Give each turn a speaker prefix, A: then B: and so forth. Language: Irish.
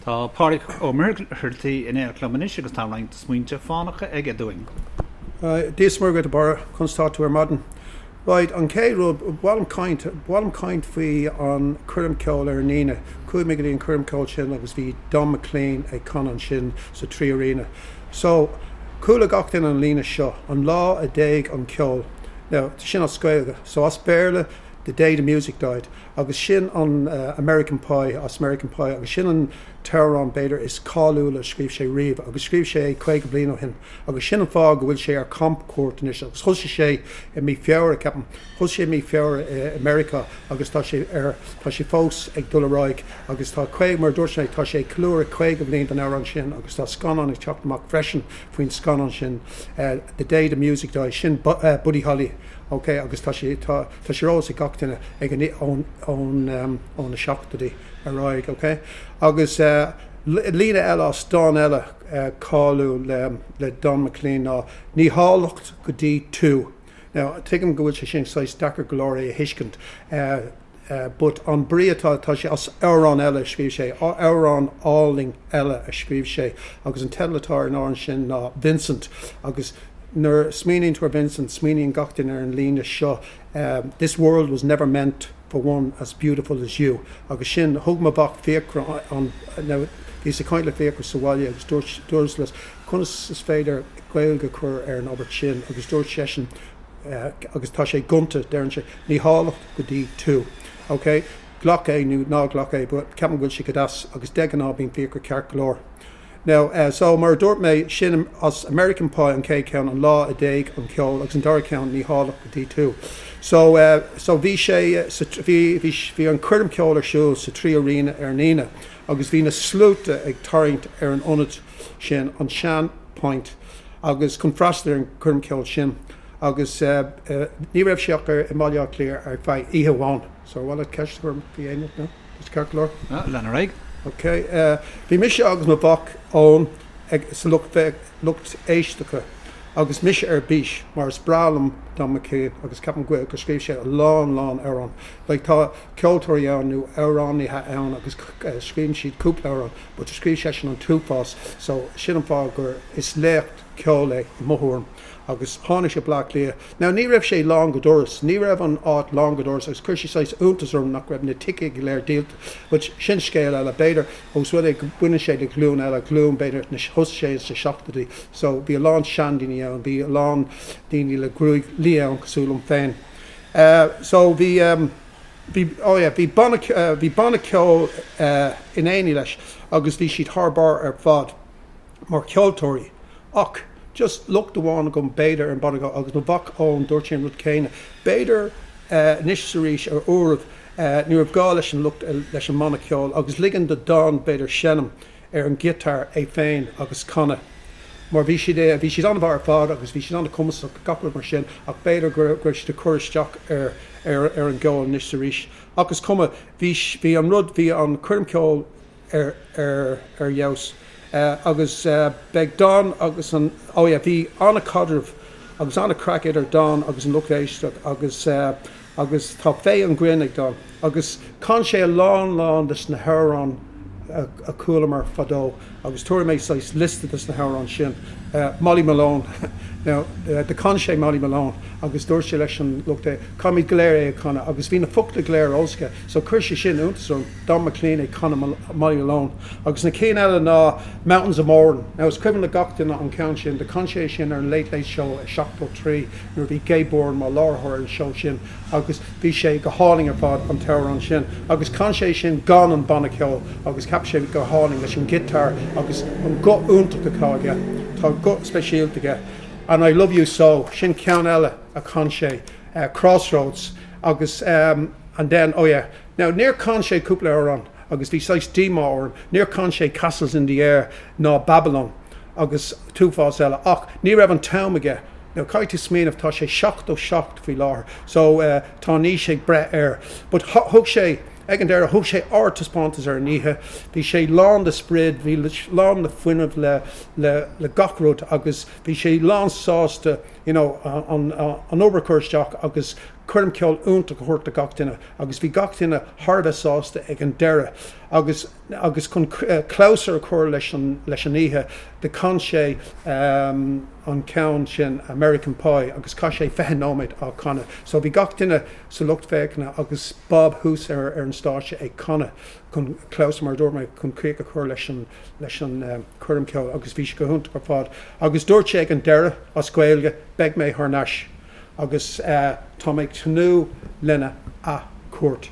A: Tá Pádraig Ó Muircheartaigh in éineacht liom anois agus tá roinnt smaointe fánacha aige dúinn.
B: Dia is Muire dhuit a Barra, conas tá tú ar maidin? Right, an chéad rud, ba mhaith liom caint, ba mhaith liom caint faoi an choirm ceoil ar an Aoine. Chuaigh mé go dtí an choirm ceoil sin agus bhí Don McLean ag canadh ansin sa 3 Arena. So, chuala gach duine an líne seo, an lá a d'éag an ceol. Now, sin as Gaeilge. So as Béarla, the day the music died. Agus sin an American Pie, as American Pie, agus sin an t-amhrán b'fhéidir is cáiliúla a scríobh sé riamh, agus scríobh sé é 50 bliain ó shin, agus sin an fáth go bhfuil sé ar camchuairt anois, agus thosaigh sé i mí Feabhra, ceapaim, thosaigh sé i mí Feabhra i Meiriceá agus tá sé ar, tá sé fós ag dul ar aghaidh, agus tá 50, mar a dúirt mé, tá sé ag ceiliúradh 50 bliain den amhrán sin, agus tá scannán ag teacht amach freisin faoin scannán sin, The Day the Music Died, sin Buddy Holly, ok, agus tá sé, tá. Tá sé ar eolas ag gach duine ag an ón ón ó na seachtóidí ar aghaidh, ok? Agus líne eile as dán eile cáiliúil le le Don McLean ná Ní háilleacht go dtí tú. Now, tuigim go bhfuil sé sin saghas deacair go leor é a thuiscint but an brí atá, tá sé as amhrán eile a scríobh sé, amhrán álainn eile a scríobh sé agus an teideal atá ar an amhrán sin ná Vincent agus Nuair a smaoiníonn tú ar Vincent, smaoiníonn gach duine ar an líne seo, This world was never meant for one as beautiful as you. Agus sin, thug mo mhac Fiachra an, now, bhíos ag caint le Fiachra sa bhaile agus dúirt, dúras leis, conas is féidir Gaeilge a chur ar an abairt sin agus dúirt seisean, agus tá sé gonta, deireann sé, ní háilleacht go dtí tú. Ok? Glac é nó ná glac é, but ceapaim go bhfuil sé go deas agus de ghnáth bíonn Fiachra ceart go leor. Now, so, mar a dúirt mé, sin as American Pie an chéad cheann, an lá a d'éag an ceol, agus an dara ceann, ní háilleacht go dtí tú. So, so bhí sé sa, bhí, bhí, bhí an choirm ceoil ar siúl sa 3 Arena ar an Aoine, agus bhí na sluaite ag tarraingt ar an ionad sin, an sean Point, agus chun freastal ar an choirm ceoil sin. Agus ní raibh sé ach ar, i mBaile Átha Cliath ar feadh oíche amháin. So, ar mhaith leat ceist a chur orm faoi aon rud? No? Is ceart go leor?
A: Lean ar aghaidh.
B: Ok. Bhí mise agus mo mhac Eoin ag, sa lucht, lucht éisteachta agus mise ar bís mar is breá liom Don McLean agus ceapaim go, gur scríobh sé a lán, lán amhrán. Like tá ceoltóirí ann nó amhránaithe ann agus scríobhann siad cúpla amhrán but scríobh seisean an t-uafás so sin an fáth gur, is laoch ceoil é i mo thuairim. agus tháinig sé Bleá Cliath. Now ní raibh sé lán go doras, ní raibh an áit lán go doras agus chuir sé saghas iontas orm nach raibh na ticéid go léir díolta. But sin scéal eile. B'fhéidir ós rud é go baineann sé le glúin eile, glúin b'fhéidir na, thosaigh sé sna seachtóidí so bhí a lán seandaoine ann, bhí a lán daoine le gruaig liath ann cosúil liom féin. So bhí, bhí, oh yeah, bhí banna, bhí banna ceoil in éineacht leis agus bhí siad thar barr ar fad. mar cheoltóirí. Ach just locht amháin agam b'fhéidir ar an bhanna agus mo mhac Eoin dúirt sé an rud céanna. B'fhéidir anois is arís ar uairibh ní raibh gá leis an lucht leis an mbanna ceoil agus ligean do Don b'fhéidir seinm ar an ghiotár é féin agus canadh. Mar bhí siad bhí siad an-mhaith ar fad agus bhí siad an-chumasach gach rud mar sin ach b'fhéidir go raibh siad ag cur isteach ar ar ar an gceol anois is arís. Ach is cuma bhí bhí an rud bhí an choirm ceoil ar ar fheabhas agus beidh Don agus an oh yeah bhí an-chaidreamh agus an-chraic idir Don agus an lucht éisteachta agus agus tá féith an ghrinn ag Don agus chan sé a lán lán des na hamhráin a chualamar fadó agus tabharfaidh mé saghas liosta des na hamhráin sin. Molly Malone now do chan sé Molly Malone agus dúirt sé leis an lucht é caithfimid go léir é a chanadh agus bhí na focla go léir ar eolas aige so chuir sé sin iontas orm. Don McLean ag canadh Molly Malone. Agus na cinn eile ná Mountains of Mourne. Now is cuimhin le gach duine an ceann sin, do chan sé é sin ar an Late Late Show i 73 nuair a bhí Gay Byrne mar láithreoir ar an seó sin agus bhí sé go hálainn ar fad an t-amhrán sin. Agus chan sé é sin gan an banna ceoil agus cheap sé go hálainn leis an giotár agus an guth iontach atá aige. Tá guth speisialta aige. And I Love You So, sin ceann eile a chan sé. Crossroads agus and then, oh yeah, Now, níor chan sé cúpla amhrán agus bhí saghas díomá orm, níor chan sé Castles in the Air ná Babylon agus t-uafás eile ach ní raibh an t-am aige. Now, caithfidh tú smaoineamh, tá sé 77 faoi láthair so tá an aois ag breith air. But thug sé, ag an deireadh, thug sé ardtaispeántas ar an oíche, bhí sé lán de sprid, bhí lán de fuinneamh le, le, le gach rud agus bhí sé lán sásta. you know, an an obair a chur isteach agus coirm ceoil iontach a thabhairt do gach duine agus bhí gach duine thar a bheith sásta ag an deireadh agus agus chun clabhsúr a chur leis an leis an oíche do chan sé an ceann sin American Pie agus chaith sé 20 nóiméad á chanadh. So bhí gach duine sa lucht féachana agus Bob thuas ar ar an stáitse ag canadh chun clabhsúr mar a dúirt mé chun críoch a chur leis an leis an choirm ceoil agus bhí sé go hiontach ar fad. Agus dúirt sé ag an deireadh as Gaeilge beidh mé thar n-ais agus tá mé ag tnúth lena athchuairt.